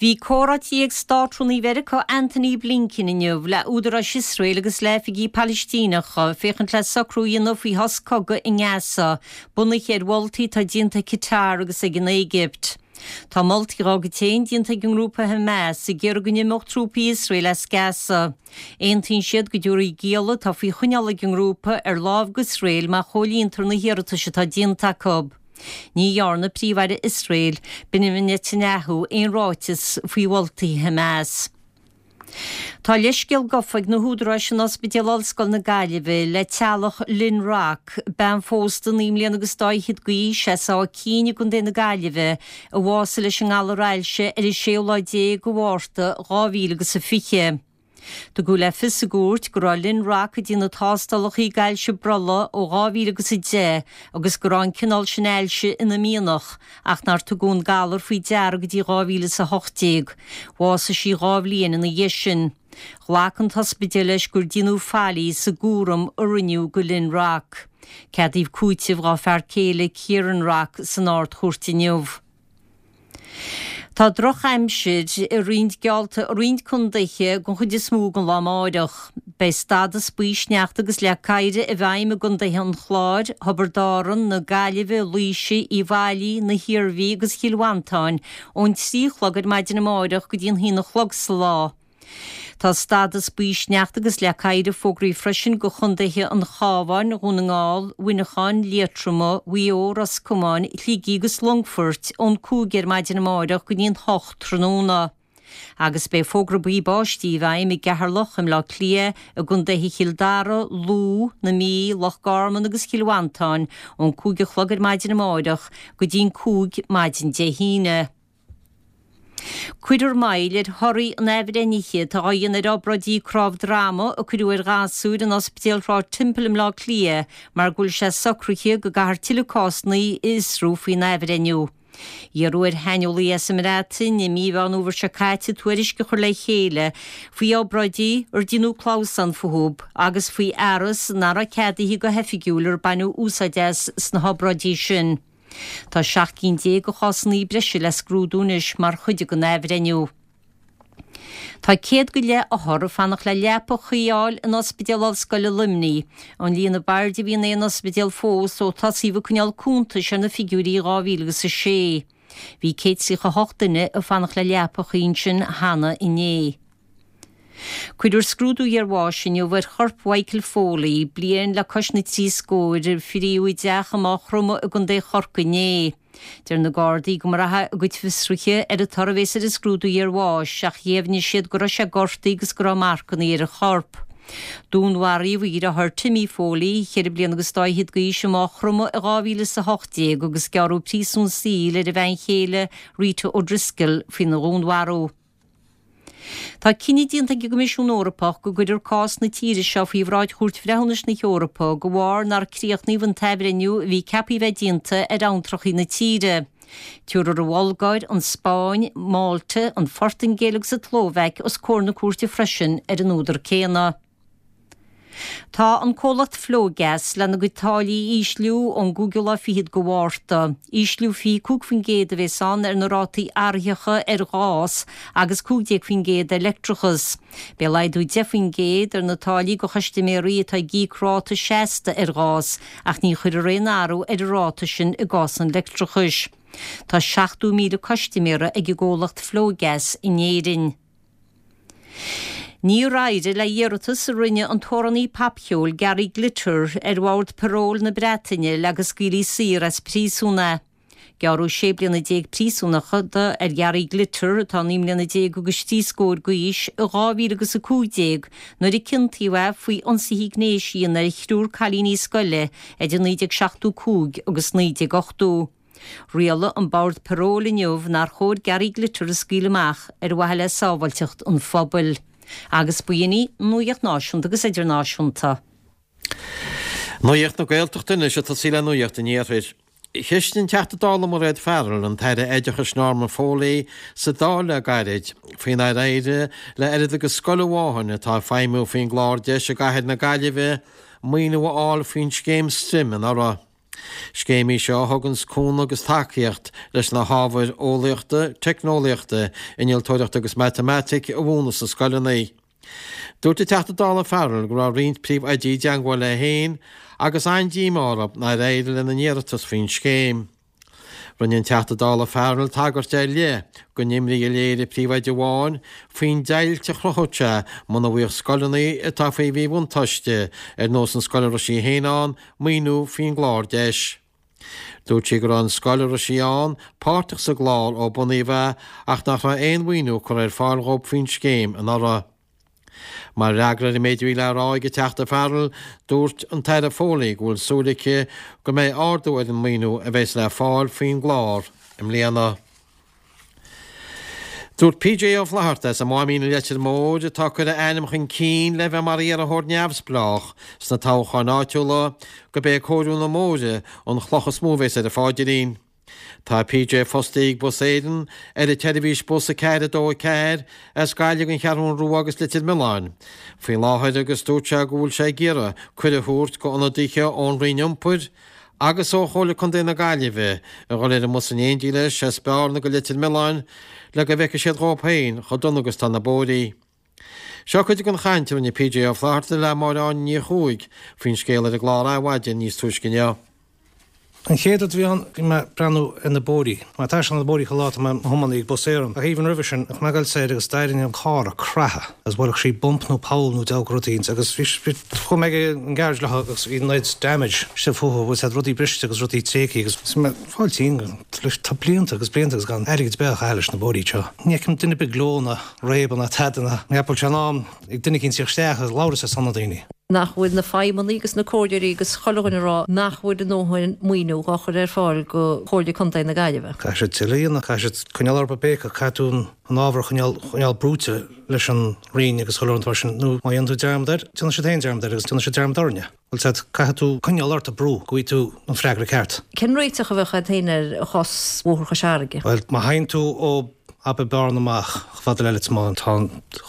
Bhí comhráití ag Státrúnaí Mheiriceá Antony Blinken inniu le údaráis Iosrael agus le hoifigigh Palaistíneacha féachaint le socrú a dhéanamh faoi shos cogaidh i nGaza, bunaithe ar mholtaí atá déanta ag Qatar agus ag an Éigipt. Tá moltaí dá gcuid féin déanta ag an ngrúpa Hamas ag iarraidh go n-imeodh trúpaí Iosrael as Gaza. Aontaíonn siad go dtabharfaí gialla atá faoi choinneáil ag an ngrúpa ar láimh d'Iosrael má chomhlíontar na hiarratais atá déanta acu. Ní dhearna Príomh-Aire Iosrael, Benjamin Netanyahu, aon ráiteas faoi mholtaí Hamas. Tá leithscéal gafa ag na húdaráis in Ospidéal Ollscoil na Gaillimhe le teaghlach Lynn Rock, bean phósta 9 mbliana agus dá fhichead d'aois as Áth Cinn i gContae na Gaillimhe, a bhásaigh leis an ngalar ailse ar an séú lá déag de Mhárta 2020. Tugadh le fios i gcúirt go raibh Lynn Rock ag déanamh tástálacha d'ailse brollaigh ó 2010 agus go raibh an cineál sin ailse ina mianach ach nár tugadh an galar faoi deara go dtí 2018. Bhásaigh sí dhá bhliain ina dhiaidh sin. Ghlac an t-ospidéal leis gur déanadh faillí sa gcúram a rinneadh do Lynn Rock. Ceadaíodh cúiteamh dá fear céile Kieran Rock san Ard-Chúirt inniu. Tá drochaimsir i roinnt geallta i roinnt contaetha den chuid is mó den lá amáireach. Beidh stádas buí sneachta agus leac oighir i bhfeidhm i gcontaetha an Chláir, Thiobraid Árann, na Gaillimhe, Laoise, Uíbh Fhailí, na hIarmhí agus Chill Mhantáin ón 3 a chlog ar maidin amáireach go dtí an haon a chlog sa lá. Tá stádas buí sneachta agus leac oighir fógraithe freisin do chontaetha an Chabháin, Dhún na nGall, Mhuineacháin, Liatroma, Mhaigh Eo, Ros Comáin, Shligigh agus Longfoirt ón 5 ar maidin amárach go dtí an 8 tráthnóna. Agus beidh fógra buí báistí i bhfeidhm i gCeatharlach, i mBleá Cliath, i gcontaetha Chill Dara, Lú, na Mí, Loch Garman agus Chill Mhantáin ón 5 a chlog ar maidin amárach go dtí an 5 maidin Dé hAoine. Cuirfear moill ar thorthaí an athbhreithnithe atá á dhéanamh ar obráidí cnámh droma a cuireadh ar ghasúir in Ospidéal Shráid Temple i mBleá Cliath mar go bhfuil sé socraithe go gcaithfear tuilleadh cásanna a fhiosrú faoin athbhreithniú. Iarradh ar shaineolaí as an mBreatain i mí Mheán Fhómhair seo caite tuairisc a chur le chéile faoi obráidí ar déanadh clamhsán fúthu agus faoi fhearas nach raibh ceadaithe go hoifigiúil ar baineadh úsáid as sna hobráidí sin. Tá 17 cinn de chásanna breise le scrúdú anois mar chuid den athbhreithniú. Tá 100 go leith othar ag fanacht le leapa chuí a fháil in Ospidéal Ollscoile Luimnigh, an líon ab airde a bhí in aon ospidéal fós ó tosaíodh ag coinneáil cuntais ar na figiúirí i 2006. Bhí 138 duine ag fanacht le leapa chuí ansin cheana inné. Cuirfear scrúdú iarbháis inniu ar chorp Mhichael Foley, bliain le cois na dtrí scór, a fríodh i dteach i Maigh Chromtha i gContae Chorcaí inné. Deir na Gardaí go mbraithfidh a gcuid fiosruithe ar an toradh a bhéas ar an scrúdú iarbháis ach dheimhnigh siad go raibh sé gortaithe agus go raibh marcanna ar a chorp. Dúnmharaíodh a dheartháir Timmy Foley, cheithre bliana agus dá fhichead d'aois, i Maigh Chromtha i 2018 agus gearradh príosún saoil ar a bhean chéile Rita O'Driscoll faoina dhúnmharú. Tá cinneadh déanta ag an gCoimisiún Eorpach go gcuirfear cás na tíre seo faoi bhráid Chúirt Bhreithiúnais na hEorpa de bharr nár críochnaíodh an t-athbhreithniú a bhí ceaptha a bheith déanta ar abhantrachaí na tíre. Tabharfar an Bhulgáir, an Spáinn, Málta, an Phortaingéil agus an tSlóvaic os comhair na cúirte freisin ar an údar céanna. Tá an comhlacht Flogas lena gcuid táillí a ísliú ón gcúigiú lá fichead de Mhárta. Ísliú 25% a bhéas ann ar na rátaí athraitheacha ar ghás agus 15% ar leictreachas. Beidh laghdú 10% ar na táillí do chustaiméirí atá ag íoc ráta seasta ar ghás ach ní chuirfear aon athrú ar an ráta sin i gcás an leictreachais. Tá 70,000 custaiméara ag an gcomhlacht Flogas in Éirinn. Níor éirigh le hiarratas a rinne an t-amhránaí popcheoil Gary Glitter ar Bhord Paróil na Breataine le go scaoilfí saor as príosún é. Gearradh 16 bliana príosúnachta ar Ghary Glitter, atá 19 mbliana agus trí scór d'aois, i 2015 nuair a ciontaíodh é faoi ionsaithe gnéis a dhéanamh ar thriúr cailíní scoile idir 1975 agus 1980. Rialaigh an Bord Paróil inniu nár chóir Gary Glitter a scaoileadh amach ar mhaithe le sábháilteacht an phobail. Agus b'in í an nuaíocht náisiúnta agus idirnáisiúnta. Nuaíocht na Gaeltachta anois ag tosaí le Nuaíocht an Iarthair. Cheistigh an Teachta Dála Mairéad Farrell an tAire Oideachais Norma Foley sa Dáil le gairid faoi nár éirigh le oiread agus scoil amháin atá ag feidhmiú faoin gclár deis i gcathair na Gaillimhe maoiniú a fháil faoin scéim Stream anuraidh. Scéim í seo a thuganns cúnamh agus tacaíocht leis na hábhair eolaíochta, teicneolaíochta, innealtóireachta agus matamaitic a mhúineadh sna scoileanna. Dúirt an Teachta Dála Farrell go raibh roinnt príomhoidí i dteangmháil léi féin agus an-díomá orthu nár éirigh lena n-iarratas faoin scéim. Rinne an Teachta Dála Farrell tagairt ar leith don imní a léirigh príomhoide amháin faoin deighilt a chruthódh sé muna bhfaigheadh scoileanna atá faoi mhíbhuntáiste, ar nós an scoil a raibh sí féin ann, maoiniú faoin gclár deis. Dúirt sí go raibh an scoil a raibh sí ann páirteach sa gclár ó bunaíodh é ach nach raibh aon mhaoiniú curtha ar fáil dhóibh faoin scéim anuraidh. Mar fhreagra ar an méid a bhí le rá ag an Teachta Farrell, dúirt an tAire Foley go bhfuil súil aici go mbeidh ardú ar an maoiniú a bheas le fáil faoin gclár i mbliana. Dúirt PJ Ó Flatharta as an Máimín i Leitir Móir, atá ag cur a ainm chun cinn le bheith mar iarrthóir neamhspleách sna toghcháin áitiúla, gurb é cóiriú na mbóithre an chloch is mó a bheas ar a pháidrín. Tá PJ fostaithe ag Bus Éireann ar an tseirbhís bus 4 2 4 as Gaillimh don Cheathrún Rua agus Leitir Mealláin faoi láthair agus dúirt sé go bhfuil sé ag iarraidh cuireadh a thabhairt go ionadaithe ón Roinn Iompair agus ó Chomhairle Contae na Gaillimhe a dhul ar an mbus in éindí leis as Bearna go Leitir Mealláin le go bhfeicfidh siad dhóibh féin chomh dona agus tá na bóithrí. Seo cuid den chaint a rinne PJ Ó Flatharta le Máire Áine Ní Chuaig faoin scéal ar an gclár Adhmhaidin níos túisce inniu. An chéad rud a bhí ann, bhí mé ag breathnú ar na bóithrí. Tá mé ag taisteal ar na bóithrí chuile lá, tá mé i mo thiománaí ag Bus Éireann. Ach even roimhe sin, bheadh mé ag dul soir agus d'éirigh an carr ag creathadh agus bhuailfeadh sí bump nó poll nó deabhadh rud éicint agus bhí, bhí, chuaigh mé ag an garage leo agus bhí an oiread damage istigh fúthu, bhfuil siad rudaí briste agus rudaí tréigthe agus bhí mé ag fáil tinn tá blianta agus blianta agus gan airgead ar bith á chaitheamh leis na bóithrí seo. Ní fheicim duine ar bith ag gleo ná réabadh ná tada ná ní cheapaim go bhfuil sé in am ag duine éicint tíocht isteach agus labhairt ar son na daoine. nach bhfuil na feidhmeannaigh agus na comhairleoirí agus chuile dhuine ag rá nach bhfuil a ndóthain maoiniú dhá chur ar fáil go Chomhairle Contae na Gaillimhe. Caithfidh siad tuilleadh a dhéanamh, caithfidh siad coinneáil orthu ag béiceadh, caithfidh tú an ábhar a choinneáil, choinneáil brúite leis an Roinn agus chuile rud mar sin, nó má dhéanann tú dearmad air, déanfaidh siad féin dearmad air agus déanfaidh siad dearmad orainne. Bhfuil a fhios agat, caithfidh tú coinneáil ort ag brú go bhfaighidh tú an freagra ceart. Cén réiteach a bheadh agat féin ar chás Bhóthar Chois Fharraige? Bhuel, má théann tú ó abair Bearna amach chomh fada le Leitir Mealláin, tá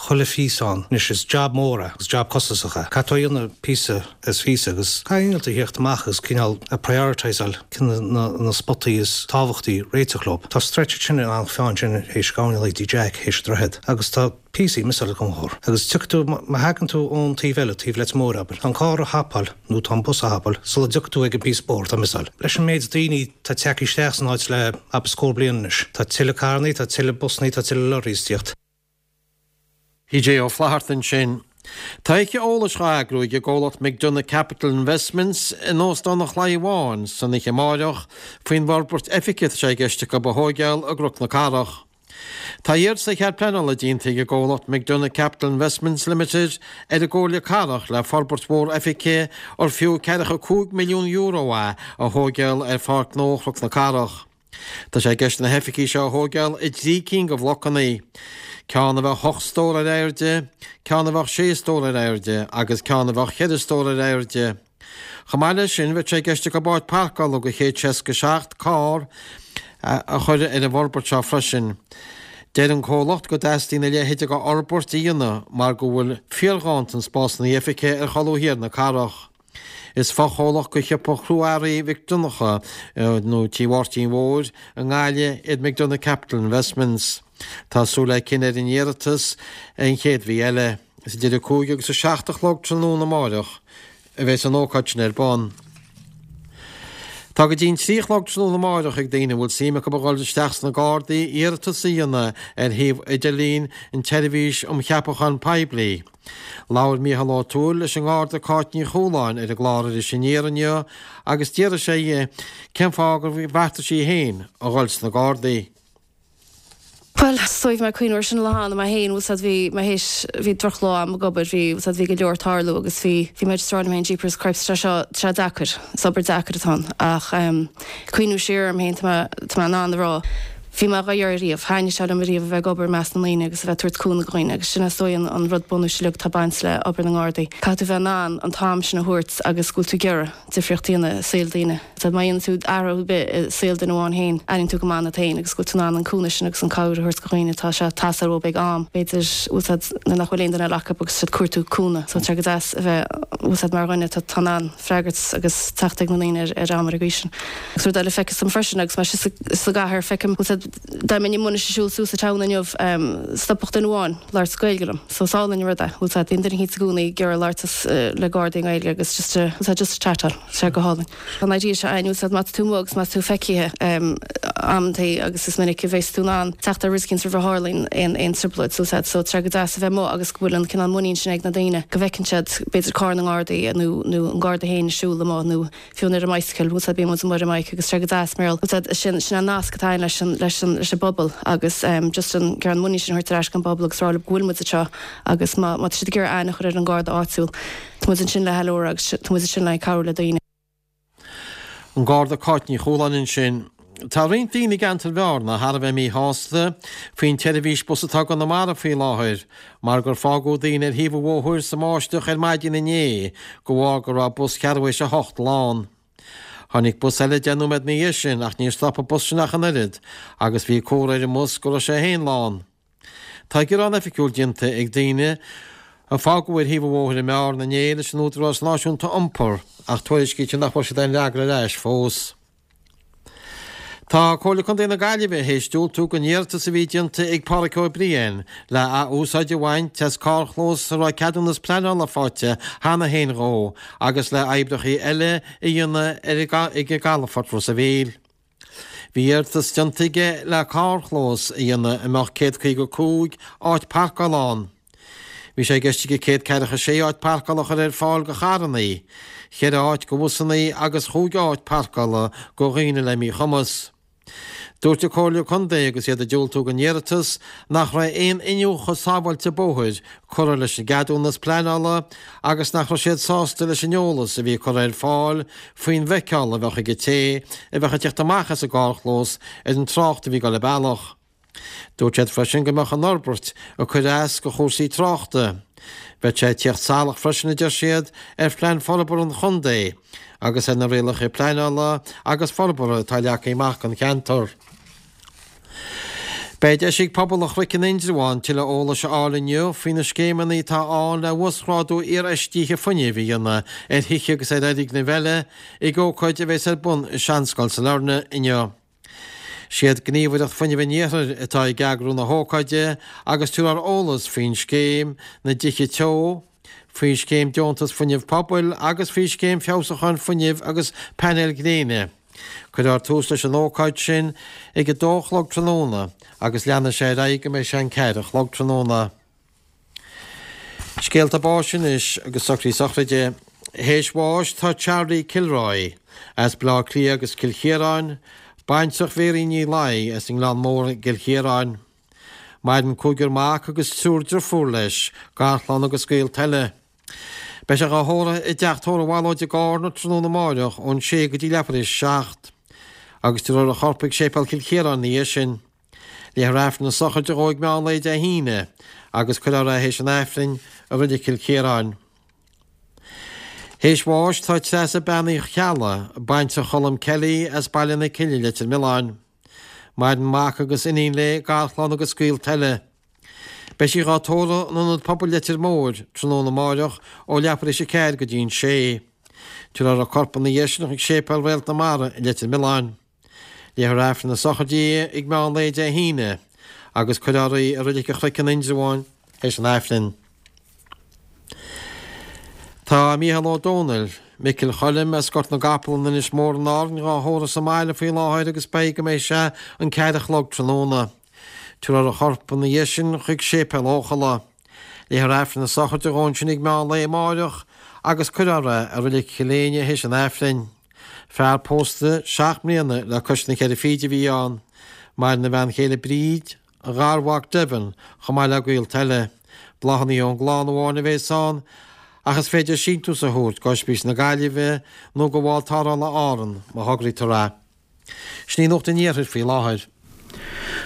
chuile phíosa ann. Anois, is jab mór é agus jab costasach é. Caithfidh tú a dhéanamh píosa is phíosa agus caithfidh innealtóir a thíocht amach agus cineál a prioritiseáil cé na na spotaí is tábhachtaí réiteach leo. Tá stretch ansin in Eanach Mheáin sin théis gabhann go dtí Jack théis an droichead agus tá píosaí miseáilte den bhóthar. Agus tiocfaidh tú, má thagann tú ón taobh eile, taobh Leitir Móir abair, tá an carr a thapáil nó tá an bus a thapáil sula dtiocfaidh tú ag an bpíosa bóthair atá miseáilte. Leis an méid daoine atá tagtha isteach san áit le abair scór bliain anois, tá tuilleadh carrannaí, tá tuilleadh busannaí, tá tuilleadh lorries ag tíocht. PJ Ó Flatharta ansin. Tá oíche eolais á eagrú ag an gcomhlacht McDonagh Capital Investments in Óstán an Chlaí Bháin san oíche amáireach faoin bhforbairt oifige atá sé i gceist acu a thóigeáil i gCnoc na Cathrach. Tá iarratas ar chead pleanála déanta ag an gcomhlacht McDonagh Capital Investments Limited ar an gComhairle Cathrach le forbairt mhór oifige ar fiú €45 milliún é a thóigeáil ar Pháirc Ghnó Chnoc na Cathrach. Tá sé i gceist na hoifigí seo a thóigeáil i dtrí cinn de bhlocanna, ceann a bheadh ocht stór ar airde, ceann a bheadh sé stór ar airde agus ceann a bheadh cheithre stór ar airde. Chomh maith leis sin, bheadh sé i gceist acu áit páirceála do 167 carr a chur ar an bhforbairt seo freisin. Deir an comhlacht go dteastaíonn a leithéid de fhorbairt a dhéanamh mar go bhfuil fíorghanntan spásanna oifige ar cholbha thiar na cathrach. Is fochomhlacht de shiopa chrua-earraí Mhic Donncha nó Tí Mháirtín Mhóir i nGaillimh iad McDonagh Capital Investments. Tá súil le cinneadh ar an iarratas an chéad mhí eile. Is idir a 5 agus a 7 a chlog tráthnóna amáireach a bheas an ócáid sin ar bun. Tá go dtí an 3 a chlog tráthnóna amáireach ag daoine a bhfuil suim acu a dhul isteach sna Gardaí iarratas a dhéanamh ar shuíomh idirlín an tSeirbhís um Cheapachán Poiblí. Labhair Mícheál Ó Tuathail leis an nGarda Cáit Ní Chualáin ar an gclár Iris Aniar inniu agus d'fhiafraigh sé dhi cén fáth gur bheartaigh sí féin a dhul sna Gardaí. Bhuel, is dóigh bhí mé ag cuimhniú ar sin an lá cheana mé féin, bhfuil 's a'd, bhí mé théis, bhí drochlá a'm ag obair, bhí, bhfuil 's a'd, bhí go leor ag tarlú agus bhí, bhí mé just ag rá liom féin, jeepers cripes, tá sé seo, tá sé deacair, is obair deacair atá ann ach em, cuimhniú siar orm féin, tá mé, tá mé in ann a rá. Bhí mé dhá iarraidh riamh, thaitnigh sé liom ariamh a bheith ag obair i measc na ndaoine agus a bheith ag tabhairt cúnamh do dhaoine agus sin is dóigh an rud bunúis uilig atá ag baint le obair na nGardaí. Caithfidh tú bheith in ann an t-am sin a thabhairt agus go bhfuil tú ag iarraidh difríocht a dhéanamh i saol daoine. Má dhéanann tú athrú ar bith i saol duine amháin féin, airíonn tú go maith ionat féin agus go bhfuil tú in ann an cúnamh sin agus an cabhair a thabhairt do dhaoine. Tá sé ag teastáil uathu ag am, b'fhéidir, bhfuil 's a'd, nuair nach bhfuil aon duine eile acu agus siad ag cuartú cúnamh. So tá sé go deas a bheith, bhfuil 's a'd, mar dhuine atá in ann freagairt agus teacht ag na ndaoine ar am ar an gcaoi sin. Agus rud eile feictear dom freisin agus mé síos sa gcathair, feicim, bhfuil 's a'd, dá mbeinn amuigh anois ag siúl suas an town inniu, stopfadh duine amháin labhairt Gaeilge liom. So is álainn an rud é, bhfuil 's a'd, bíonn duine eicínt i gcónaí ag iarraidh labhairt le Gardaí i nGaeilge agus just a, bhfuil 's a'd, just a chatáil, tá sé go hálainn. Tá an idea seo againn, bhfuil 's a'd, má tá tú amuigh agus má tá tú feicthe amantaí agus is minic a bheas tú in ann teacht ar rud eicínt roimh a tharlaíonn aon aon trioblóid, so bhfuil 's a'd, so tá sé go deas a bheith amuigh agus go bhfuil an cineál muinín sin ag na daoine go bhfeiceann siad b'fhéidir carr na nGardaí nó nó an Garda féin ag siúl amuigh nó fiú ar an mbicycle, bhfuil 's a'd, bíonn muid amuigh ar an mbike agus tá sé go deas mar bhfuil 's a'd, sin, sin an nasc atá againn leis an, leis an, leis an bpobal agus ehm just an, an muinín sin a thabhairt ar ais don bpobal agus rá leo go bhfuil muid anseo agus má, má tá siad ag iarraidh aithne a chur ar an Garda áitiúil, tá muid ansin le ceiliúradh agus tá muid ansin le cabhrú le daoine. An Garda Cáit Ní Chualáin ansin. Tá roinnt daoine i gceantar Bhearna thar a bheith míshásta faoin tseirbhís bus atá i gConamara faoi láthair mar gur fágadh daoine ar thaobh an bhóthair sa mbáisteach ar maidin inné de bharr go raibh bus cheathrú théis a hocht lán. Tháinig bus eile 10 nóiméad ina dhiaidh sin ach níor stop an bus sin ach an oiread agus bhí comhartha ar an mbus go raibh sé féin lán. Tá gearán oifigiúil déanta ag daoine a fágadh ar thaobh an bhóthair i mBearna inné leis an Údarás Náisiúnta Iompair ach tuairiscítear nach bhfuair siad aon fhreagra ar ais fós. Tá Comhairle Contae na Gaillimhe théis diúltú don iarratas a bhí déanta ag Pádhraic Ó Briain le ath-úsáid a bhaint as carrchlós a raibh ceadúnas pleanála faighte cheana féin dhó agus le oibreacha eile a dhéanamh ag an gcalafort Ros a' Mhíl. Bhí iarratas déanta aige le carrchlós a dhéanamh a mbeadh 155 áit parcála ann. Bhí sé i gceist aige 146 áit parcála a chur ar fáil do charrannaí, cheithre áit do bhusannaí agus chúig áit parcála do dhaoine le míchumas. Dúirt an Comhairle Contae agus iad ag diúltú don iarratas nach raibh aon iniúchadh sábháilte bóthair curtha leis an gceadúnas pleanála agus nach raibh siad sásta leis an eolas a bhí curtha ar fáil faoin bhfeiceáil a bheadh ag an té a bheadh ag teacht amach as an gcarrchlós ar an trácht a bhí ag dul an bealach. Dúirt siad freisin go mbeadh an fhorbairt ag cur as do chúrsaí tráchta. Bheadh sé ag tíocht salach freisin, a deir siad, ar phlean forbartha an chontae agus ar na rialacha pleanála agus forbartha atá leagtha amach don cheantar. Beidh deis ag pobal an Chnoic in Indreabhán tuilleadh eolais a fháil inniu faoi na scéimeanna atá ann le uasghrádú iarfheistithe fuinnimh a dhéanamh ar thithe agus ar fhoirgnimh eile ag ócáid a bheas ar bun i Seanscoil Sailearna inniu. Siad Gníomhaireacht Fuinnimh an Iarthair atá ag eagrú na hócáide agus tabharfar eolas faoin scéim na dTithe Teo, faoi scéim Deontas Fuinnimh Pobail agus faoi scéim feabhsúcháin fuinnimh agus painéil ghréine. Cuirfear tús leis an ócáid sin ag a dó a chlog tráthnóna agus leanfaidh sé ar aghaidh go mbeidh sé an ceathair a chlog tráthnóna. Scéalta báis anois agus socruithe sochraide. Théis bháis tá Charlie Kilroy as Baile Átha Cliath agus Cill Chiaráin, baintreach Mhéirín Ní Laoi as an nGleann Mór i gCill Chiaráin. Maireann cúigear mac agus triúr driofúr leis, garchlann agus gaolta eile. Beidh sé dhá thórramh i dteach tórraimh Mhalóid i gCarna tráthnóna amáireach ón sé go dtí leathuair théis a 7. Agus tabharfar a chorp chuig Séipéal Chill Chiaráin ina dhiaidh sin. Léifear Aifreann na sochraide dhó ag meán lae Dé hAoine agus cuirfear é théis an Aifrinn i Reilig Chill Chiaráin. Théis bháis tá Treasa Bean Uí Cheallaigh, baintreach Cholm Kelly as Baile na Cille, Leitir Mealláin. Maireann mac agus iníon léi, garchlann agus gaolta eile. Beidh sí dhá tórramh in Ionad Pobail Leitir Móir tráthnóna amáireach ó leathuair théis a 4 go dtí an 6. Tabharfar a corp ina dhiaidh sin chuig Séipéal Réalt na Mara i Leitir Mealláin. Léifear Aifreann na sochraide di ag meán lae Dé hAoine agus cuirfear í i Reilig an Chnoic in Indreabhán théis an Aifrinn. Tá Mícheál Ó Domhnaill, Micil Choilm as Gort na gCapall in Inis Mór in Árainn dhá thórramh sa mbaile faoi láthair agus beidh go mbeidh sé an ceathair a chlog tráthnóna. Tabharfar a chorp ina dhiaidh sin chuig Séipéal Eochalla. Léifear Aifreann na sochraide dhó ansin ag meán lae amáireach agus cuirfear é i Reilig Chill Éinne théis an Aifrinn. Fear pósta seacht mbliana le cois na ceithre fichid a bhí ann. Maireann a bhean chéile Bríd, a gharmhac Devin, chomh maith le gaolta eile. Bláthanna ón gclann amháin a bhéas ann, ach is féidir síntiús a thabhairt go Ospís na Gaillimhe nó go Bhord Tarrthála Árann má thograítear é. Sin í Nuacht an Iarthair faoi láthair.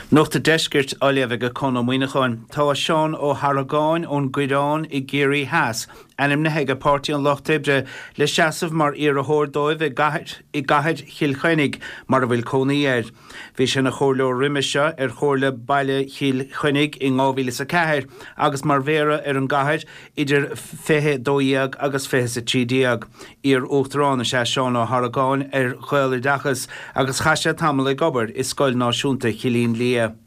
Nuacht an Deiscirt á léamh ag Conn Ó Muíneacháin. Tá Seán Ó hArgáin ón gCoireán i gCiarraí Theas ainmnithe ag Páirtí an Lucht Oibre le seasamh mar iarrthóir dóibh i gcathair i gcathair Chill Chainnigh mar a bhfuil cónaí air. Bhí sé ina chomhairleoir roimhe seo ar Chomhairle Baile Chill Chainnigh in 2004 agus mar mhéara ar an gcathair idir 2012 agus 2013. Iar-Uachtarán is ea Seán Ó hArgáin ar Ghaeloideachas agus chaith sé tamall ag obair i Scoil Náisiúnta Chillín Liath.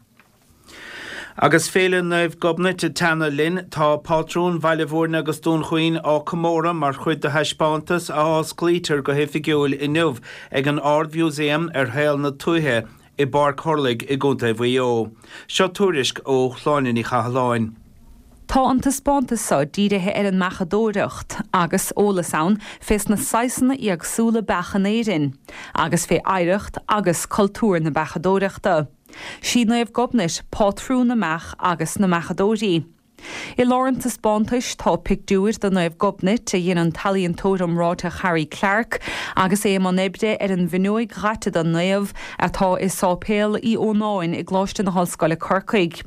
Agus Féile Naomh Gobnait ag teannadh linn, tá pátrún Bhaile Bhúirne agus Dún Chaoin á comóradh mar chuid de thaispeántas a osclaítear go hoifigiúil inniu ag an Ard-Mhúsaem ar shaol na tuaithe i bPáirc Thurlaigh i gContae Mhaigh Eo. Seo tuairisc ó Shláine Ní Chathalláin. Tá an taispeántas seo dírithe ar an mbeachadóireacht, agus eolas ann fés na saghsanna éagsúla beach in Éirinn, agus fé oidhreacht agus cultúr na beachadóireachta. Sí Naomh Gobnait pátrún na mbeach agus na mbeachadóirí. I lár an taispeántais tá pictiúir de Naomh Gobnait a dhein an t-ealaíontóir iomráiteach Harry Clarke agus é i mbun oibre ar an bhfuinneoig dhaite den naomh atá i Sáipéal Uí Ónáin i gColáiste na hOllscoile Corcaigh.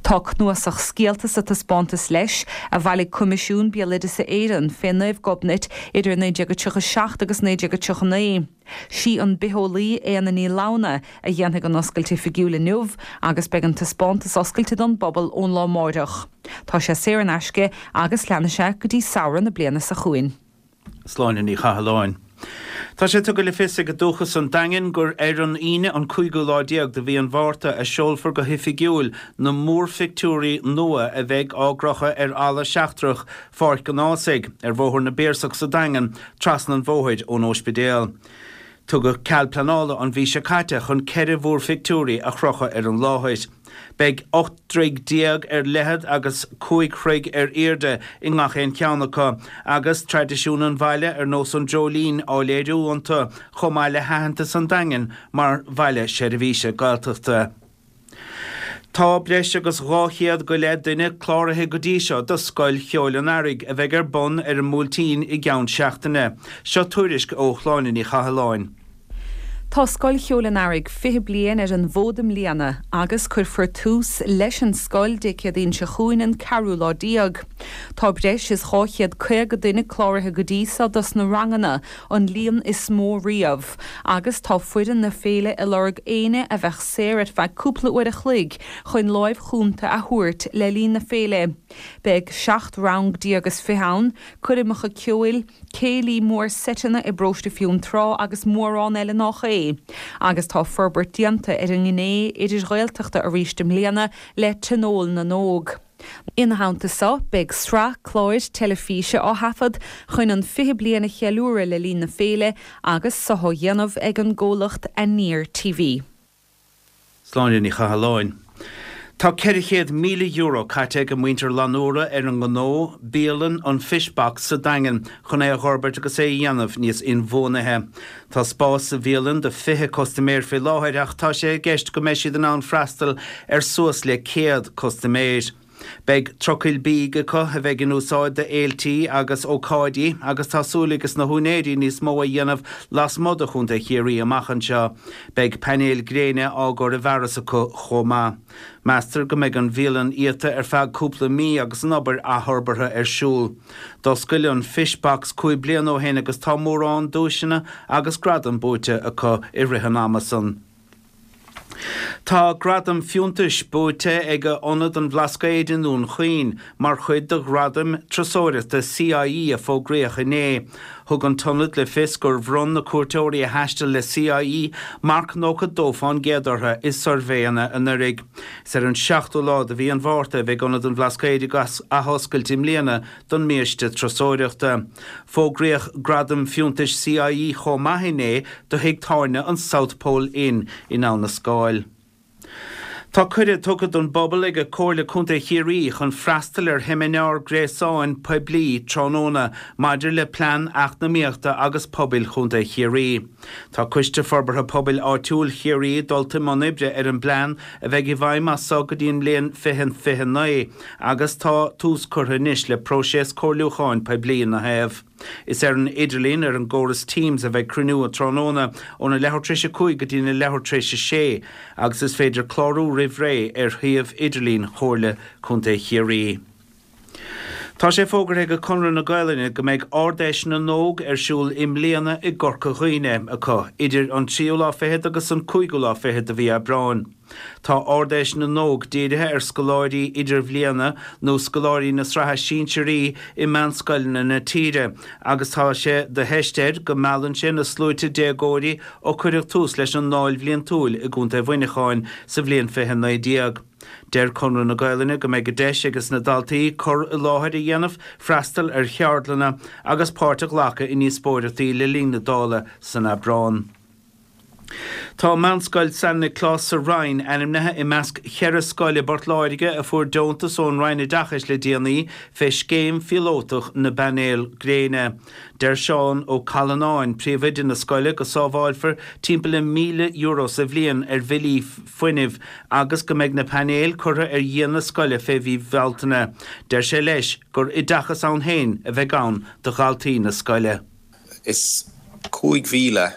Tá cnuasach scéalta sa taispeántas leis a bhailigh Coimisiún Béaloideasa Éireann fé Naomh Gobnait idir 1937 agus 1939. Sí an bitheolaí Éanna Ní Lamhna a dhéanfaidh an oscailt oifigiúil inniu agus beidh an taispeántas oscailte don bpobal ón lá amáireach. Tá sé saor in aisce agus leanfaidh sé go dtí samhradh na bliana seo chugainn. Sláine Ní Chathalláin. Tá sé tugtha le fios ag Dúchas an Daingin gur ar an Aoine an cúigiú lá déag de mhí an Mhárta a seolfar go hoifigiúil na múrphictiúirí nua a bheidh á gcrochadh ar fhalla seachtrach Pháirc an Ághasaigh, ar Bhóthar na bPiarsach sa Daingean, trasna an bhóthair ón óispidéal. Tugadh cead pleanála an mhí seo caite chun 14 mhúrphictiúirí a chrochadh ar an láthair. Beidh 18 dtroigh ar leithead agus 5 throigh ar airde i ngach aon cheann acu, agus traidisiún an bhaile ar nós an dreoilín á léiriú iontu, chomh maith le haitheantas an Daingin mar bhaile seirbhíse Gaeltachta. Tá breis agus 200 go leith duine cláraithe go dtí seo do Scoil Cheoil an Earraigh a bheidh ar bun ar an mBuailtín i gceann seachtaine. Seo tuairisc ó Shláine Ní Chathalláin. Tá Scoil Cheoil an Earraigh 20 bliain ar an bhfód i mbliana agus cuirfear tús leis an scoil Dé Céadaoin seo chugainn an ceathrú lá déag. Tá breis is 250 duine cláraithe go dtí seo dos na ranganna, an líon is mó riamh, agus tá foireann na féile ag lorg éinne a bheadh saor ar feadh cúpla uair a chloig chun láimh chúnta a thabhairt le linn na féile. Beidh 17 rang is fiche ann, coirmeacha ceoil, céilí mór seiteanna i bParóiste Fionntrá agus mórán eile nách é. Agus tá forbairt déanta ar an ngné idir-Ghaeltachta arís i mbliana le Tionól na nÓg. Ina theannta so, beidh sraith cláir teilifíse á thaifead chun an 20 bliain a cheiliúradh le linn na féile agus so á dhéanamh ag an gcomhlacht Aniar TV. Sláine Ní Chathalláin. Tá €400,000 caite ag muintir Fhlannúra ar an ngnó, bialann an Fish Box sa Daingean chun é a dh'fhorbairt agus é a dhéanamh níos inbhuanaithe. Tá spás sa bhialann do 20 custaiméir faoi láthair ach tá sé i gceist go mbeidh siad in ann freastal ar suas le 100 custaiméir. Beidh trucail bídh acu a bheidh in úsáid do fhéiltí agus ócáidí agus tá súil ages na húinéirí níos mó a dhéanamh lasmuigh de Chontae Chiarraí amach anseo. Beidh painéil gréine á gcur i bhfearas acu chomh maith. Meastar go mbeidh an bhialann iata ar feadh cúpla mí agus an obair athfhorbartha ar siúl. D'oscail an Fish Box 5 bliana ó shin agus tá mórán duaiseanna agus gradam buaite acu i rith an ama san. Tá gradam fiúntais buaite ag Ionad an Bhlascaoid i nDún Chaoin mar chuid de Ghradaim Turasóireachta CIE a fógraíodh inné. Thug an t-ionad le fios gur bhronn na cuairteoirí a thaistil le CIE marc 92% orthu i suirbhéanna anuraidh. Is ar an seachtú lá de mhí an Mhárta a bheidh Ionad an Bhlascaoid ag athoscailt i mbliana don mbiaiste turasóireachta. Fógraíodh Gradam Fiúntais CIE chomh maith inné do thigh tábhairne an South Pole Inn in Abha na Scáil. Tá cuireadh tugtha don bpobal ag Comhairle Contae Chiarraí chun freastal ar sheimineár gréasáin poiblí tráthnóna maidir le Plean Eacnamaíochta agus Pobail Chontae Chiarraí. Tá Coiste Forbartha Pobail Áitiúil Chiarraí dulta i mbun oibre ar an bplean a bheidh i bhfeidhm as so go dtí an mbliain 2029 agus tá tús curtha anois le próiseas comhairliúcháin poiblí ina thaobh. Is ar an idirlíon ar an gcóras Teams a bheidh cruinniú an tráthnóna óna leathuair tar éis a 5 go dtína leathuair tar éis a 6 agus is féidir clárú roimh ré ar shuíomh idirlín Chomhairle Contae Chiarraí. Tá sé fógartha ag Conradh na Gaolainne go mbeidh Ard-Fheis na nÓg ar siúl i mbliana i gCorca Dhuibhne acu idir an tríú lá fichead agus an cúigiú lá fichead de mhí Aibreáin. Tá Ard-Fheis na nÓg dírithe ar scoláirí idirbhliana nó scoláirí na sraithe sinsearaí i meánscoileanna na tíre agus tá sé de theist air go meallann sé na sluaite déagóirí ó cuireadh tús leis an nDáil Bhliantúil i gContae Mhuineacháin sa bhliain 2019. Deir Conradh na Gaolainne go mbeidh deis ages na daltaí cur i láthair a dhéanamh, freastal ar cheardlanna agus páirt a ghlacadh i ndíospóireachtaí le linn na Dála san Aibreán. Tá Meánscoil San Nioclás sa Rinn ainmnithe i measc cheithre scoil i bPort Láirge a fuair deontas ón Roinn Oideachais le déanaí fé scéim phíolótach na bpainéal gréine. Deir Seán Ó Callanáin, príomhoide na scoile, go sábháilfear timpeall le €1,000 sa bhliain ar bhillí fuinnimh agus go mbeidh na painéil curtha ar dhíon na scoile fé mhí Bhealtaine. Deir sé leis gur oideachas ann féin a bheidh ann do dhaltaí na scoile. Is 5,000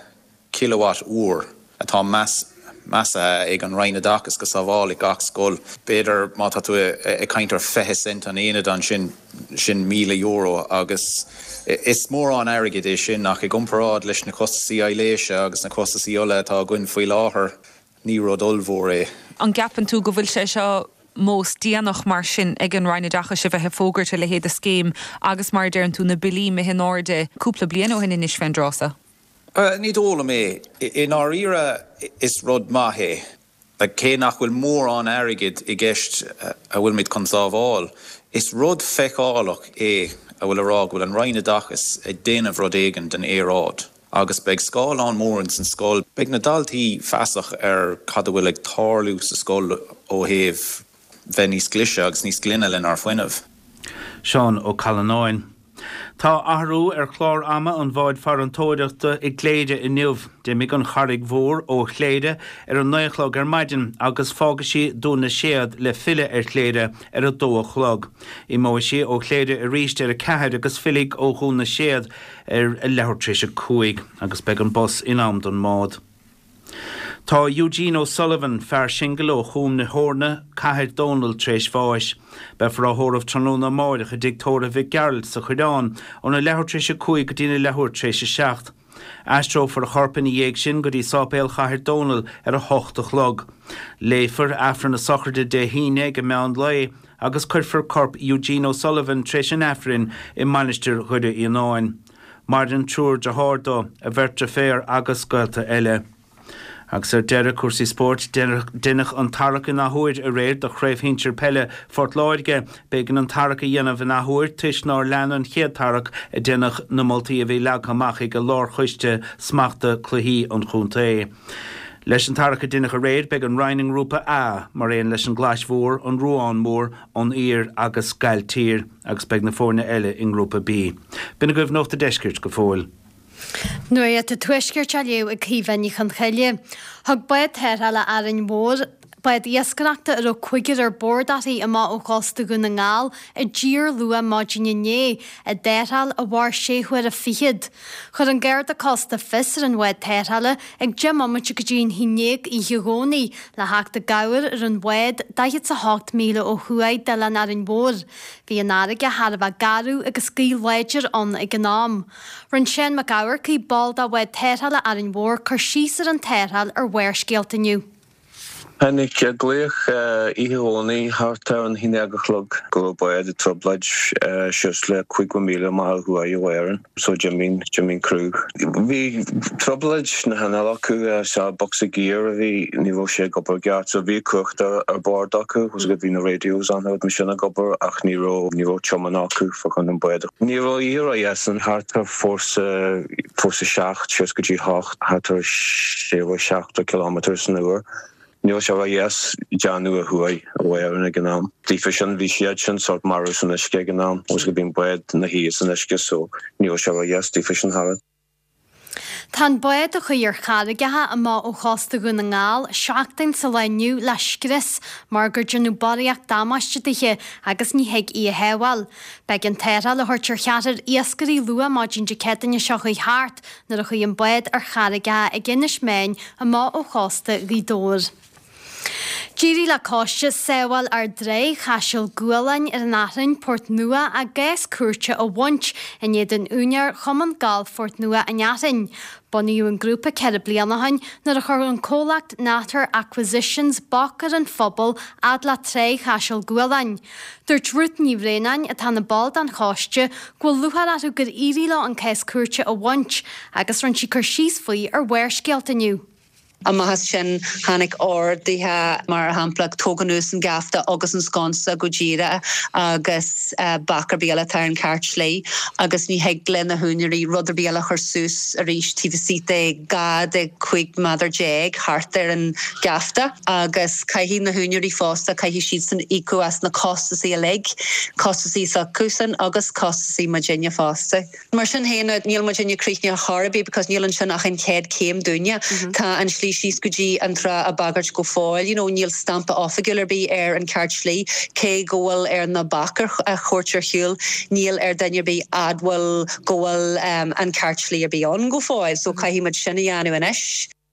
kilowatt uair atá measaithe ag an Roinn Oideachais go sábhálfaidh gach scoil. B'fhéidir má tá tú ag caint ar 20 cent an aonad ansin, sin €1,000 agus is mórán airgid é sin ach i gcomparáid leis na costasaí aibhléise agus na costasaí ola atá againn faoi láthair, ní rud ollmhór é. An gceapann tú go bhfuil sé seo mós déanach mar sin ag an Roinn Oideachais a bheith ag fógairt a leithéid de scéim agus mar a deireann tú na billí imithe in airde cúpla bliain ó shin anois fén dtráth so? Ní dóigh liom é. I ndáiríre is rud maith é. Cé nach bhfuil mórán airgid i gceist a bhfuilimid chun sábháil, is rud feiceálach é a bhfuil a rá go bhfuil an Roinn Oideachais ag déanamh rud éigin don aeráid. Agus beidh scáileán mór ins an scoil. Beidh na daltaí feasach ar cad a bhfuil ag tarlú sa scoil ó thaobh bheith níos glaise agus níos glaine lenár fuinneamh. Seán Ó Callanáin. Tá athrú ar chlár ama an bháid farantóireachta i gCléire inniu. D'imigh an Charraig Mhór ó Chléire ar a 9 a chlog ar maidin agus fágfaidh sí Dún na Séad le filleadh ar Chléire ar a 2 a chlog. Imeoidh sí ó Chléire arís ar a 4 agus fillfidh ó Dhún na Séad ar a leathuair tar éis a 5 agus beidh an bus in am don mbád. Tá Eugene O'Sullivan, fear singil ó Chúm na hEorna, Cathair Dónall tar éis bháis. Beifear á thórramh tráthnóna amáireach i dTigh Tórraimh Mhic Gearailt sa Choireán óna leathuair tar éis a 5 go dtína leathuair tar éis a 7. Aistreofar a chorp ina dhiaidh sin go dtí Sáipéal Chathair Dónall ar a hocht a chlog. Léifear Aifreann na sochraide Dé hAoine ag an meán lae agus cuirfear corp Eugene O'Sullivan tar éis an Aifrinn i Mainistir Dhoire Fhíonáin. Maireann triúr deartháir dó, a bheirt deirféar agus gaolta eile. Agus ar deireadh, cúrsaí spóirt, deineadh an tarrac in athuair aréir do Chraobh Shinsir Peile Phort Láirge. B'éigean an tarrac a dhéanamh in athuair toisc nár lean an chéad tarrac a deineadh na moltaí a bhí leagtha amach ag Lárchoiste Smachta Cluichí an chontae. Leis an tarrac a deineadh aréir, beidh an Rinn i nGrúpa A, mar aon leis an gClais Mhór, an Ruán Mór, an Aoir agus Gailltír agus beidh na foirne eile i nGrúpa B. B'in agaibh Nuacht a' Deiscirt go fóill. Nuacht an Tuaiscirt á léamh ag Caoimhe Ní Chonchoille. Thug bád tarrthála Árainn Mhór, bád iascaireachta a raibh cúigear ar bord uirthi amach ó chósta Dhún na nGall i dtír luath maidin inné, i dtarrtháil a mhair sé huaire fichead. Chuir an Garda Cósta fios ar an bhád tarrthála ag 10 mbomaite go dtí an haon ndéag oíche Dhomhnaigh le theacht i gcabhair ar an bhád 48 míle ó thuaidh d'oileán Árainn Mhór. Bhí an fharraige thar a bheith garbh agus gaoth láidir ann ag an am. Rinne Seán Mac Eamharcaigh, ball de bhád tarrthála Árainn Mhór, cur síos ar an tarrtháil ar Bharrscéalta inniu. Tháinig glaoch oíche Dhomhnaigh thart ar an haon déag a chlog go raibh bád i dtrioblóid suas le 50 míle amach ó thuaidh ó Árainn so d'imigh d'imigh an criú. Bhí trioblóid sna hinnill acu sea bocsa gear a bhí ní raibh sé ag obair i gceart so bhí cumhacht ar bord acu agus bhí na radios ann rud mar sin ag obair ach ní raibh ní raibh tiomáint acu fá choinne an bád. Ní raibh oíche ródheas ann thart ar fórsa fórsa 7 suas go dtí 8, thart ar 60 kilometre san uair. Ní raibh sé ródheas déanamh ó thuaidh ó Árainn ag an am. Daofa sin bhí siad sin sórt marbh san uisce ag an am agus go bhí an bád 'na shuí san uisce so ní raibh sé ródheas daofa sin thart. Tá an bád a chuaigh ar charraigeacha amach ó chósta Dhún na nGall seachtain sa lá inniu le scrios mar gur déanadh barraíocht damáiste dithe agus ní thig í a shábháil. B'éigean tarrtháil a thabhairt ar cheathrar iascairí luath maidin Dé Céadaoine seo chuaigh thart nuair a chuaigh an bád ar charraigeacha ag Inis Meáin amach ó chósta Ghaoth Dobhair. D'éirigh le coiste Sábháil Ár dTrá Chaiseal Gualáin ar an Athrainn, Port Nua, a gcás cúirte a bhaint in éadan úinéir Chumann Gailf Phort Nua an Athrainn. Bunaíodh an grúpa 4 bliana ó shin nuair a chuir an comhlacht Natter Acquisitions bac ar an phobal fhad le Trá Chaiseal Gualáin. Dúirt Ruth Ní Bhraonáin, atá ina ball den choiste, go bhfuil lúcháir orthu gur éirigh leo an cás cúirte a bhaint agus rinne sí cur síos faoi ar Bharrscéalta inniu. Amach as sin tháinig orduithe, mar shampla, tóg anuas an geafta agus an sconsa go díreach agus bac ar bith eile atá ar an cheart slí agus ní thig le na húinéirí rud ar bith eile a chur suas arís taobh istigh de 12 de 15 méadar thart ar an gheafta agus caithfidh na húinéirí fosta, caithfidh siadsan íocadh as na costasaí uilig, costasaí s'acusan agus costasaí muidinne fosta. Mar sin féin, níl muidinne críochnaithe chor ar bith because níl ansin ach an chéad chéim dúinne. Tá an slí síos go dtí an trá á bagairt go fóill, you know, níl stampa oifigiúil ar bith ar an ceart slí, cé go bhfuil ar na baic a thabhairt ar shiúl, níl ar duine ar bith admháil go bhfuil an ceart slí ar bith ann go fóill, so caithfidh muid sin a dhéanamh anois.